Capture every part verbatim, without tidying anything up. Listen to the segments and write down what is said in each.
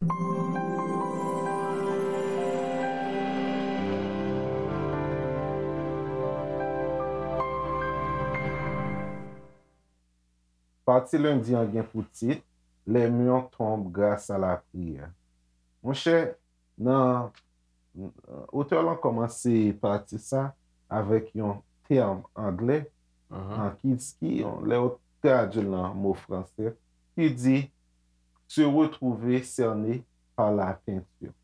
Pati lendi an gen pou tit Les murs tombent grâce à la prière. Monchè, nan otè lan kòmanse pati sa avèk yon tèm anglè an ki, ki lè yo tradui l nan mo franse, ki di se retrouver cerné par la peinture.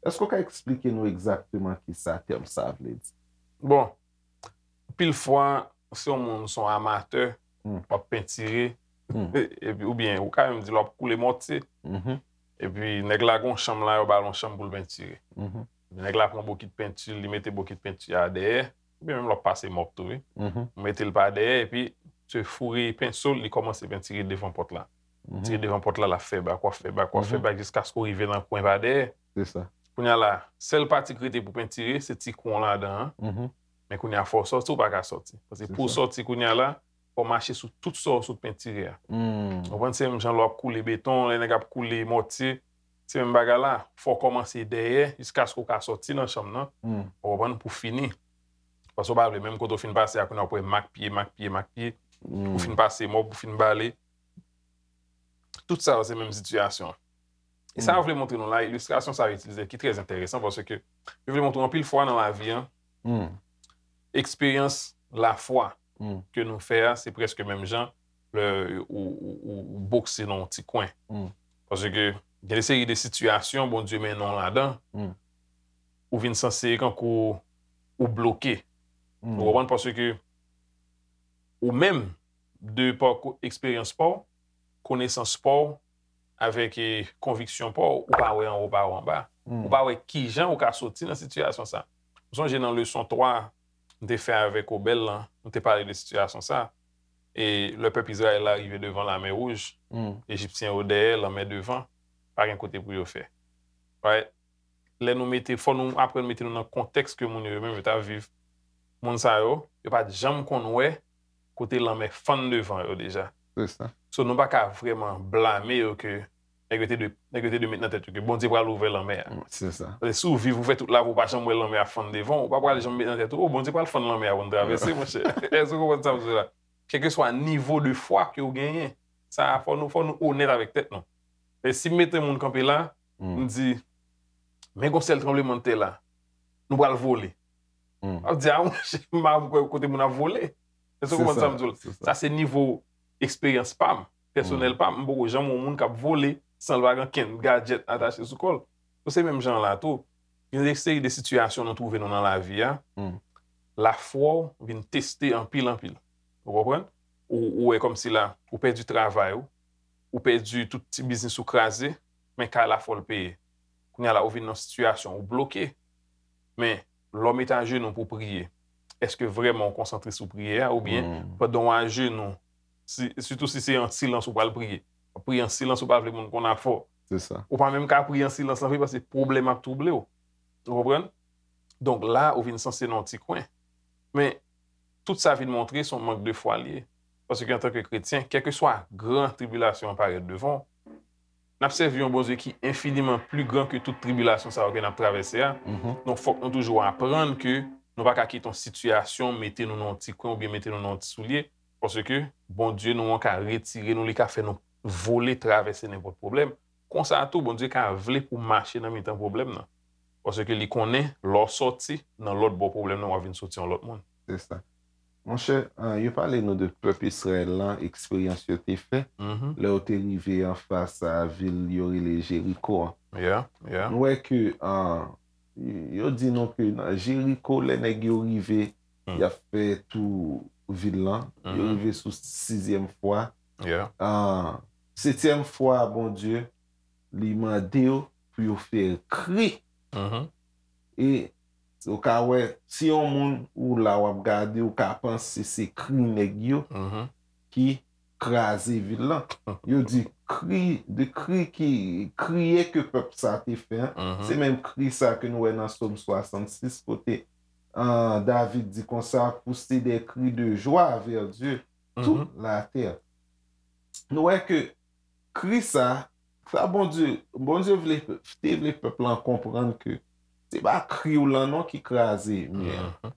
Èske w ka eksplike nou egzakteman ki sa tèm sa vle di? Bon, anpil fwa, si yon moun se yon amatè, w ap pentire, epi oubyen ou ka menm di l w ap koule mòtye. Epi nèg la gen yon chanm la, yo ba l yon chanm pou l pentire. Nèg la pran bokit penti, li mete bokit penti a dèyè, oubyen menm l ap pase mòp tou, wi. Ou mete l pa dèyè, epi se foure penso l, li kòmanse pentire devan pòt la. Tire devan pòt la, l ap fè bak, w ap fè bak, w ap fè bak, jiskaske w rive nan kwen pa dèyè. Se sa. Kounye a la, sèl pati k rete pou pentire, se ti kou an ladan an. Men kounye a, fò w sòti, ou pa ka sòti. Paske pou w sòti kounye a la, fò w mache sou tout sa w sot pentire a. Ou konprann? Se menm jan lè w ap koule beton, lè nèg ap koule mòtye, se menm bagay la. Fò w kòmanse dèyè, jiskaske w ka sòti nan chanm nan. Ou konprann? Pou fini. Paske w pa vle, menm kote w fin pase a, kounye a w ap wè mak pye, mak pye, mak pye. Ou fin pase mòp, ou fin bale. Tout sa yo se menm sitiyasyon an. E sa yo vle montre nou la, ilistrasyon sa yo itilize ki trè enteresan paske yo vle montre anpil fwa nan lavi an, eksperyans lafwa ke nou fè a, se prèske menm jan lè ou, ou, ou, ou bokse nan yon ti kwen. Paske gen de seri de sitiyasyon Bondye mennen w ladan, ou vin sanse kankou ou bloke. Ou konprann? Paske ou menm, de pa eksperyans pa w, konesans pa w, avèk e, konviksyon pa w, ou pa wè anwo, ou pa wè anba. Ou pa wè kijan ou ka soti nan sitiyasyon sa. M sonje nan leson twa m te fè avèk Obèl lan, m te pale de sitiyasyon sa. E lè pèp Izrayèl la rive devan Lamè Wouj, Ejipsyen yo dèyè, lanmè devan, pa gen kote pou yo fè. Right? Lè nou mete, fò nou aprann mete nou nan kontèks ke moun yo, yo menm yo t ap viv. Moun sa yo, yo pa t janm konn wè kote lanmè fann devan yo deja. Se sa. So, nou pa ka vrèman blame yo ke nèg yo te dwe, nèg yo te dwe met nan tèt yo ke Bondye pral ouvè lanmè a. Se sa. Paske si w viv, ou fè tout lavi, ou pa janm wè lanmè a fann devan w, ou pa pral janm met nan tèt ou, o, Bondye pral fann lanmè a pou n travèse, monchè. Èske w konprann sa m di w la? Kèlkeswa nivo de fwa ke w genyen, sa, fò nou, fò nou onèt avèk tèt nou. E si m mete moun kanpe la, m di, men gon sèl tranblemanntè la, nou pral vole. W ap di, a, monchè, m pa kwè kote moun ap vole. Èske w konprann sa m di w la? Sa se nivo eksperyans pa m, pèsonèl pa m. M poko janm wè yon moun k ap vole san l pa gen kenn gadjèt atache sou kò l. Donk se menm jan an la tou. Gen de seri de sitiyasyon nou twouve nou nan lavi a. Lafwa w vin teste anpil, anpil. Ou konprann? Ou, ou wè kòmsi la, ou pèdi travay ou, ou pèdi tout ti biznis ou kraze, men kay la fò l peye. Kounye a la, ou vin nan sitiyasyon, ou bloke. Men, lè w mete ajenou pou w priye, èske vrèman w konsantre sou priyè a, oubyen pandan w ajenou, si, sitou si se an silans ou pral priye, w ap priye an silans, ou pa vle moun konn afè w. Se sa. Ou pa menm ka priye an silans lan vre, paske pwoblèm ap twouble w. Ou konprann? Donk la, ou vin sanse nan yon ti kwen. Men, tout sa vin montre se yon mank de fwa l ye. Paske antanke kretyen, kèlkeswa gran tribilasyon an parèt devan w, n ap sèvi yon Bondye ki enfiniman pli gran ke tout tribilasyon sa yo ke n ap travèse a. Donk, fòk nou toujou aprann ke nou pa ka kite yon sitiyasyon mete nou nan yon ti kwen oubyen mete nou nan yon ti soulye, paske Bondye nou an ka retire nou, li ka fè nou vole travèse nenpòt pwoblèm. Konsa tou, Bondye ka vle pou w mache nan mitan pwoblèm nan. Paske li konnen, lè w sòti nan lòt bò pwoblèm nan, w ap vin soti yon lòt moun. Se sa. Monchè, ah, yo pale nou de pèp Izrayèl lan, eksperyans yo te fè, lè yo te rive anfas a vil yo rele Jeriko an. Yeah, yeah. Nou wè ke, ah, yo di nou ke nan Jeriko, lè nèg yo rive, y ap fè tou vil lan, yo rive sou sizyèm fwa. Yeah. Ah, setyèm fwa, Bondye, li mande yo pou yo fè kri. E ou ka wè, si yon moun ou la w ap gade, ou ka panse se kri nèg yo ki kraze vil lan. Yo di kri, de kri ki, kriye ke pèp sa te fè an. Se menm kri sa ke nou wè nan Sòm swasannsis, kote, ah, David di konsa, pousser des cris de joie vers Dieu, toute la terre. Nou wè ke kri sa, Sa Bondye, Bondye vle, te vle pèp lan konprann ke se pa kri w lan non ki kraze mi an.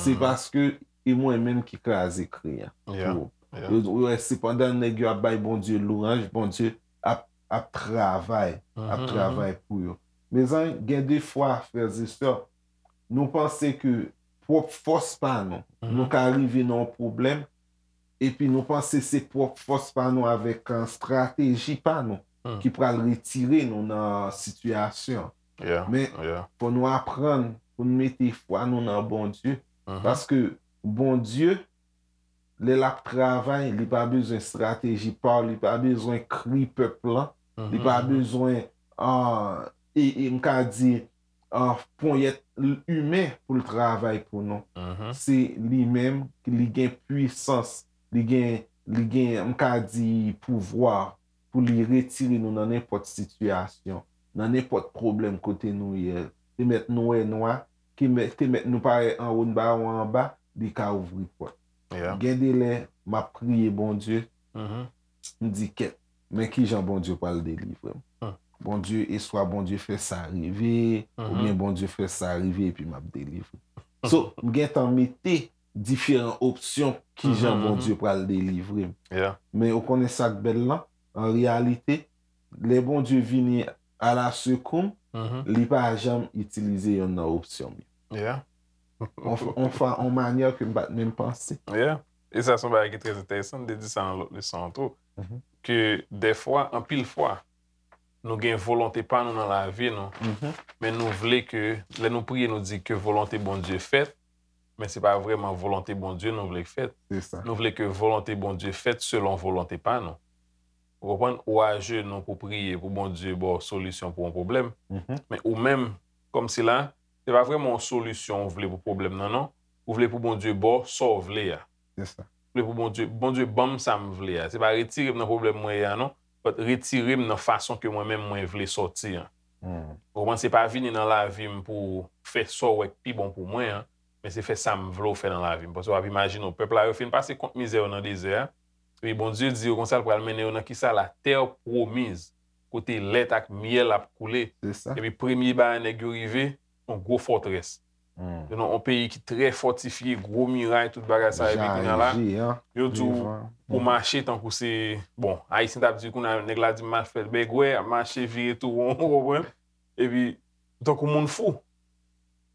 Se paske e mwen menm ki kraze kri an. Pou yo, yo wè, se pandan nèg yo ap bay Bondye lwanj, Bondye ap, ap travay, ap travay pou yo. Mezanmi, gen de fwa, frè e sè, nou panse ke pwòp fòs pa nou, nou ka rive nan yon pwoblèm, epi nou panse se pwòp fòs pa nou avèk, uh, estrateji pa nou ki pral retire nou nan sitiyasyon. Men, fò nou aprann pou nou mete fwa nou nan Bondye. Paske Bondye, lè l ap travay, li pa bezwen estrateji pa w, li pa bezwen kri pèp lan, li pa bezwen, uh, e, e m ka di, uh, ponyèt imen pou l travay pou nou. Se li menm, li gen pwisans, li gen, li gen, m ka di, pouvwa pou li retire nou nan nenpòt sitiyasyon, nan nenpòt pwoblèm kote nou ye. Te mèt nou wè nwa, te mèt, te mèt nou parèt anwo, n pa wè anba, li ka ouvri pòt. Gen de lè, m ap priye Bondye, m di, kèt, men kijan Bondye pral delivre m? Bondye, e swa Bondye fè sa rive, oubyen Bondye fè sa rive epi m ap delivre. So, m gentan mete diferan opsyon kijan Bondye pral delivre m. Men ou konnen sa k bèl lan? An reyalite, lè Bondye vini alasekou m, li pa janm itilize yonn nan opsyon m yo. On, on fa-, on manyè ke m pa t menm panse. E sa se yon bagay ki trè enteresan, m te di sa nan lòt leson an tou, ke dèfwa, anpil fwa, nou gen volonte pa nou nan lavi nou, men nou vle ke, lè nou priye, nou di ke volonte Bondye fèt, men se pa vrèman volonte Bondye nou vle k fèt. Nou vle ke volonte Bondye fèt selon volonte pa nou. Ou konprann? Ou ajenou pou priye pou Bondye ba w solisyon pou yon pwoblèm, men ou menm, kòmsi la, se pa vrèman yon solisyon ou vle pou pwoblèm nan, non. Ou vle pou Bondye ba w sa w vle a. Ou vle pou Bondye, Bondye ban m sa m vle a. Se pa retire m nan pwoblèm mwen ye a, non. But retire m nan fason ke mwen menm mwen vle sòti an. Ou konprann? Se pa vini nan lavi m pou fè sa w wè k pi bon pou mwen an, men se fè sa m vle w fè nan lavi m. Paske w ap imajine w, pèp la, yo fin pase kont mizè yo nan dezè a. Epi Bondye di yo konsa, l pral mennen yo nan kisa? La terre promise, kote lèt ak myèl ap koule. Epi premye bagay nèg yo rive, yon gwo fòtrès. Yon, yon peyi ki trè fòtifye, gwo miray, tout bagay sa, epi kounye a la, yo di w pou mache tankou se, bon, Ayisyen t ap di kounye a, nèg la di m al fè bègwè, ap mache vire tou won, ou konprann? Epi, tankou moun fou.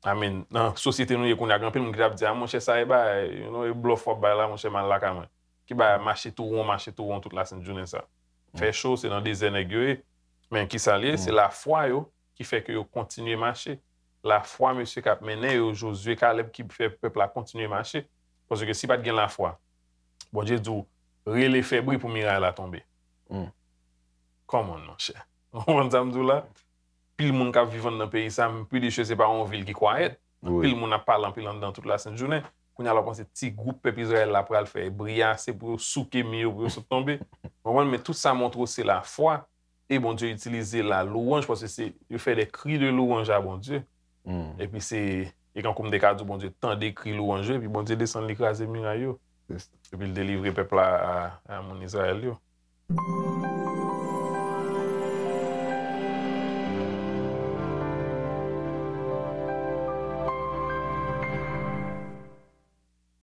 I mean, nan sosyete nou ye kounye a, gen anpil moun ki t ap di, a, monchè, sa e bagay, you know, e blòf w ap bay la, monchè, m al lakay mwen. Ki bagay, mache tou won, mache tou won tout lasent jounen sa. Fè cho, se nan dezè nèg yo ye. Men kisa l ye? Se lafwa yo ki fè ke yo kontinye mache. Lafwa mesye k ap mennen yo, Jozye, Kalèb, ki fè pèp la kontinye mache. Paske si pa t gen lafwa, Bondye di w, rele fè bri pou miray la tonbe. Come on, monchè. Ou konprann sa m di w la? Pil moun k ap viv anndan peyi sa, m pretty sure se pa yon vil ki kwayèt. Pil moun ap pale anpil anndan tout lasent jounen. Kounye a la w panse ti gwoup pèp Izrayèl la pral fè bri ase pou yo souke mi yo, pou yo sot tonbe. Ou konprann? Men tout sa montre w se lafwa. E Bondye itilize la louanj, paske se, yo fè des cris de louange à Bondye. Epi se, e kankou m te ka di w, Bondye tande kri louanj yo, epi Bondye desann li kraze miray yo. Epi l delivre pèp la a, a moun Izrayèl yo.